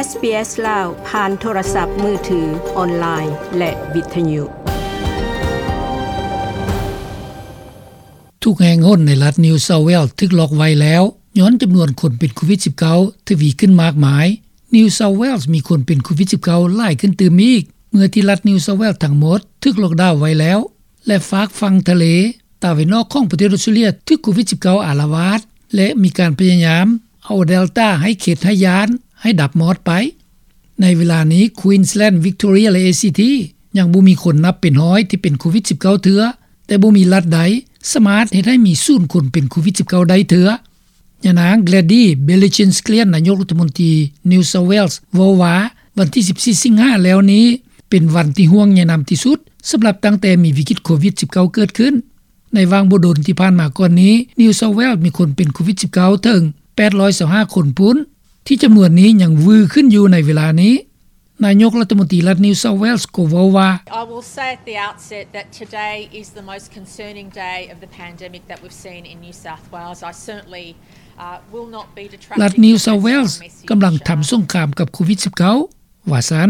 ເອສ ບີ ເອສ ລາວ ຜ່ານໂທລະສັບມືຖື, ອອນລາຍ ແລະ ວິທະຍຸ. ທຸກແຫ່ງຫົນໃນລັດ New South Wales ຖືກລັອກໄວ້ແລ້ວ ຍ້ອນຈຳນວນຄົນເປັນໂຄວິດ-19 ທະວີຂຶ້ນມາກມາຍ. New South Wales ມີຄົນເປັນໂຄວິດ-19 ຫຼາຍຂຶ້ນຕື່ມອີກ ເມື່ອທີ່ລັດ New South Wales ທັງໝົດຖືກລັອກດາວໄວ້ແລ້ວ ແລະ ຟາກຝັ່ງທະເລຕາເວັນອອກຂອງປະເທດອອສເຕຣເລັຽ ຖືກໂຄວິດ-19 ອາລະວາດ ແລະ ມີການພະຍາຍາມເອົາ Delta ໃຫ້ເຂັດໃຫ້ຢ້ານ ໃຫ້ດັບມອດໄປ. ໃນເວລານີ້ Queensland, Victoria ແລະ ເອຊີທີ ຍັງບໍ່ມີຄົນນັບເປັນຮ້ອຍທີ່ເປັນໂຄວິດ-19 ເທື່ອ, ແຕ່ບໍ່ມີລັດໃດສາມາດເຮັດໃຫ້ມີສູນຄົນເປັນໂຄວິດ-19 ໄດ້ເທື່ອ. ຍານາງ Gladys Berejiklian, ນາຍົກລັດຖະມົນຕີ New South Wales ເວົ້າວ່າ ວັນທີສິບສີ່ ສິງຫາແລ້ວນີ້ ເປັນວັນທີ່ຫ່ວງໃຍນຳທີ່ສຸດ ສຳລັບຕັ້ງແຕ່ມີວິກິດໂຄວິດ-19 ເກີດຂຶ້ນ. ໃນຫວ່າງບໍ່ດົນທີ່ຜ່ານມາກ່ອນນີ້ New South Wales ມີຄົນເປັນໂຄວິດ-19 ເຖິງ ແປດຮ້ອຍຊາວຫ້າຄົນພຸ້ນ, ທີ່ຈຳນວນນີ້ຍັງວືຂຶ້ນຢູ່ໃນເວລານີ້. ນາຍົກລັດຖະມົນຕີລັດ New South Wales ກໍເວົ້າວ່າ I will say at the outset that today is the most concerning day of the pandemic that we've seen in New South Wales. I certainly, uh, will not be detracting from passing our message. ລັດ New South Wales ກຳລັງທຳສົງຄາມກັບໂຄວິດ-19 ວ່າຊັ້ນ.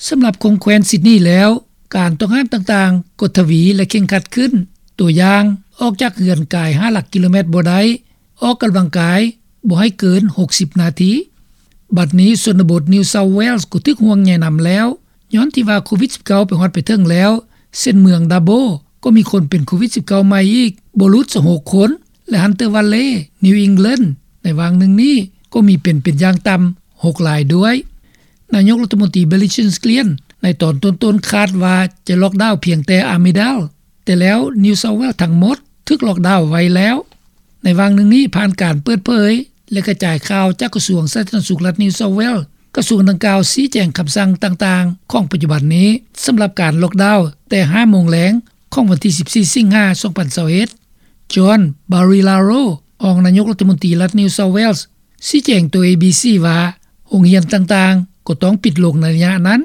ສຳລັບຂອງແຄວ້ນຊິດນີແລ້ວ ການຕ້ອງຫ້າມຕ່າງໆກໍທະວີ ແລະ ເຄັ່ງຄັດຂຶ້ນ. ຕົວຢ່າງ, ອອກຈາກເຮືອນກາຍຫ້າຫຼັກກິໂລແມັດບໍ່ໄດ້, ອອກກຳລັງກາຍບໍ່ໃຫ້ເກີນຫົກສິບນາທີ. ບັດນີ້ຊົນນະບົດ New South Wales ກໍຖືກຫ່ວງໃຍນຳແລ້ວ ຍ້ອນທີ່ວ່າໂຄວິດ-19 ໄປຮອດໄປເຖິງແລ້ວ, ເຊັ່ນເມືອງ Dubbo ກໍມີຄົນເປັນໂຄວິດ-19 ໃໝ່ອີກບໍ່ຫຼຸດຊາວຫົກຄົນ ແລະ Hunter Valley, New England ໃນຫວ່າງໜຶ່ງນີ້ກໍມີເປັນ ເປັນຢ່າງຕ່ຳຫົກລາຍດ້ວຍ. ນາຍົກລັດຖະມົນຕີ Berejiklian ໃນຕອນຕົ້ນໆຄາດວ່າຈະລັອກດາວພຽງແຕ່ Armidale, ແຕ່ແລ້ວ New South Wales ທັງໝົດຖືກລັອກດາວໄວ້ແລ້ວ. ໃນຫວ່າງໜຶ່ງນີ້ ຜ່ານການເປີດເຜີຍ ແລະ ກະຈາຍຂ່າວຈາກກະຊວງສາທາລະນະສຸກລັດ New South Wales, ກະຊວງດັ່ງກ່າວຊີ້ແຈງຄຳສັ່ງຕ່າງໆຂອງປັດຈຸບັນນີ້ ສຳລັບການລັອກດາວແຕ່ຫ້າໂມງແລງຂອງວັນທີສິບສີ່ ສິງຫາ ສອງພັນຊາວເອັດ. John Barilaro, ຮອງນາຍົກລັດຖະມົນຕີລັດ New South Wales, ຊີ້ແຈງຕໍ່ ເອບີຊີ ວ່າ ໂຮງຮຽນຕ່າງໆກໍຕ້ອງປິດລົງໃນໄລຍະນັ້ນ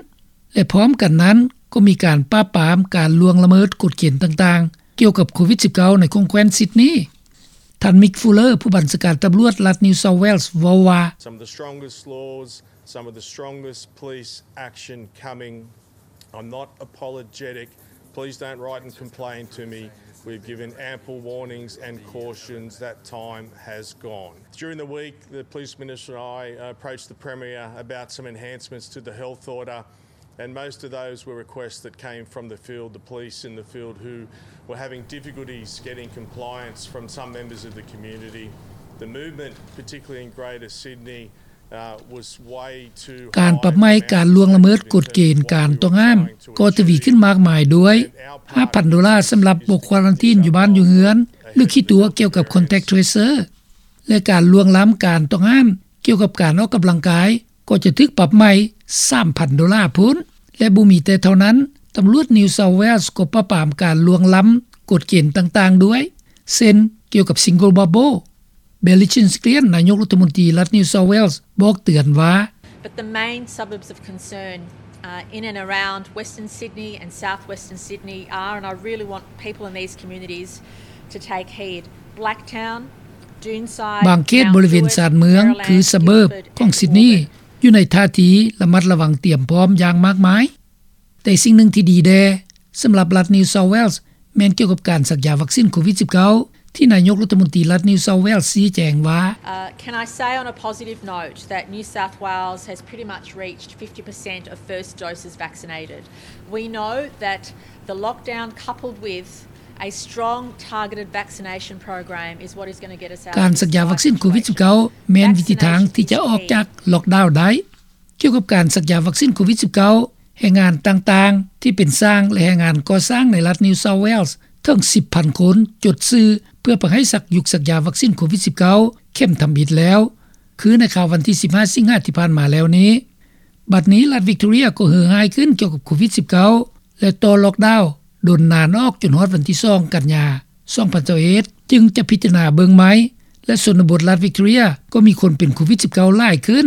ແລະ ພ້ອມກັນນັ້ນກໍມີການປາບປາມການລ່ວງລະເມີດກົດເກນຕ່າງໆ ກ່ຽວກັບໂຄວິດ-19 ໃນຂົງແຄວ້ນຊິດນີ. ທ່ານ Mick Fuller, ຜູ້ບັນຊາການຕຳຫຼວດລັດ New South Wales, ເວົ້າວ່າ Some of the strongest laws, some of the strongest police action coming. I'm not apologetic. Please don't write and complain to me. We've given ample warnings and cautions. That time has gone. During the week, the Police Minister and I, uh, approached the Premier about some enhancements to the health order, and most of those were requests that came from the field, the police in the field, who were having difficulties getting compliance from some members of the community. The movement, particularly in Greater Sydney, ການປັບໃໝການລ່ວງລະເມີດກົດເກນການຕ້ອງຫ້າມກໍທະວີຂຶ້ນມາກມາຍດ້ວຍ ຫ້າພັນໂດລາສຳລັບບໍ່ຄວາຣັນທີນຢູ່ບ້ານຢູ່ເຮືອນ ຫຼື ຂີ້ຕົວະກ່ຽວກັບ Contact Tracer ແລະ ການລ່ວງລ້ຳການຕ້ອງຫ້າມກ່ຽວກັບການອອກກຳລັງກາຍ ກໍຈະຖືກປັບໃໝສາມພັນໂດລາພຸ້ນ. ແລະ ບໍ່ມີແຕ່ເທົ່ານັ້ນ, ຕຳຫຼວດ New South Wales ກໍປາບປາມການລ່ວງລ້ຳກົດເກນຕ່າງໆດ້ວຍ ເຊັ່ນ ກ່ຽວກັບ Single Bubble. Berejiklian, ນາຍົກລັດຖະມົນຕີລັດ New South Wales ບອກເຕືອນວ່າ But the main suburbs of concern, uh, in and around Western Sydney and South Western Sydney are, and I really want people in these communities to take heed, Blacktown, Doonside, ບາງເຂດບໍລິເວນຊານເມືອງ Mount Druitt, ຄື Maryland, ສະເບີບ Guildford ຂອງຊິດນີ Guildford. ຢູ່ໃນທ່າທີລະມັດລະວັງຕຽມພ້ອມຢ່າງມາກມາຍ. ແຕ່ສິ່ງໜຶ່ງທີ່ດີແດ່ສຳລັບລັດ New South Wales ແມ່ນກ່ຽວກັບການສັກຢາວັກຊິນໂຄວິດ-19 ທີ່ນາຍົກລັດຖະມົນຕີລັດ New South Wales ຊີ້ແຈງວ່າ Uh, can I say on a positive note that New South Wales has pretty much reached fifty percent of first doses vaccinated? We know that the lockdown coupled with a strong targeted vaccination program is what is gonna get us out of this tight situation. ການສັກຢາວັກຊິນໂຄວິດ-19 ແມ່ນວິທີທາງທີ່ຈະອອກຈາກລັອກດາວໄດ້. ກ່ຽວກັບການສັກຢາວັກຊິນໂຄວິດ-19, ແຮງງານຕ່າງໆທີ່ເປັນຊ່າງ ແລະ ແຮງງານກໍ່ສ້າງໃນລັດ New South Wales ເຖິງສິບພັນຄົນຈົດຊື່ເພື່ອໄປໃຫ້ສັກ ຢຸກສັກຢາວັກຊິນໂຄວິດ-19 ເຂັມທຳອິດແລ້ວ ຄືໃນຄາວວັນທີສິບຫ້າ ສິງຫາທີ່ຜ່ານມາແລ້ວນີ້. ບັດນີ້ລັດ Victoria ກໍເຫີຮ້າຍຂຶ້ນກ່ຽວກັບໂຄວິດ-19 ແລະ ຕໍ່ລັອກດາວດົນນານອອກຈົນຮອດວັນທີສອງ ກັນຍາ ສອງພັນຊາວເອັດ ຈຶ່ງຈະພິຈາລະນາເບິ່ງໃໝ່ ແລະ ຊົນນະບົດລັດ Victoria ກໍມີຄົນເປັນໂຄວິດ-19 ຫຼາຍຂຶ້ນ.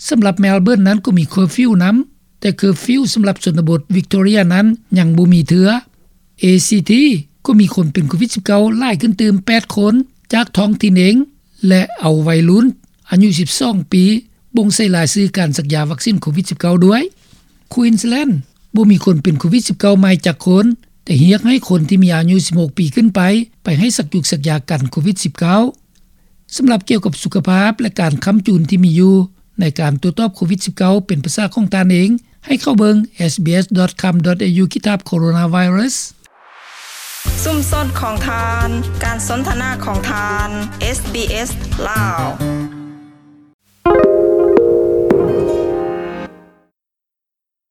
ສຳລັບ Melbourne ນັ້ນກໍມີ curfew ນຳ, ແຕ່ curfew ສຳລັບຊົນນະບົດ Victoria ນັ້ນຍັງບໍ່ມີເທື່ອ. ເອຊີທີ ກໍມີຄົນເປັນໂຄວິດ-19 ຫຼາຍຂຶ້ນຕື່ມ ແປດຄົນ ຈາກທ້ອງຖິ່ນເອງ ແລະ ເອົາໄວລຸ້ນອາຍຸສິບສອງປີ ບົ່ງໃສ່ລາຍຊື່ການສັກຢາວັກຊິນໂຄວິດ-19 ດ້ວຍ. ແຂວງຄວີນສແລນ ບໍ່ມີຄົນເປັນໂຄວິດ-19 ໃໝ່ຈັກຄົນ, ແຕ່ຮຽກໃຫ້ຄົນທີ່ມີອາຍຸ 16 ປີຂຶ້ນໄປ ໄປໃຫ້ສັກຈຸກສັກຢາກັນໂຄວິດ-19. ສຳລັບກ່ຽວກັບສຸຂະພາບ ແລະ ການຄ້ຳຈູນທີ່ມີຢູ່ ໃນການໂຕ້ຕອບໂຄວິດ-19 ເປັນພາສາຂອງທ່ານເອງ, ໃຫ້ເຂົ້າເບິ່ງ sbs.com.au/coronavirus. ຊຸມຊົນຂອງທ່ານ, ການສົນທະນາຂອງທ່ານ SBS ລາວ.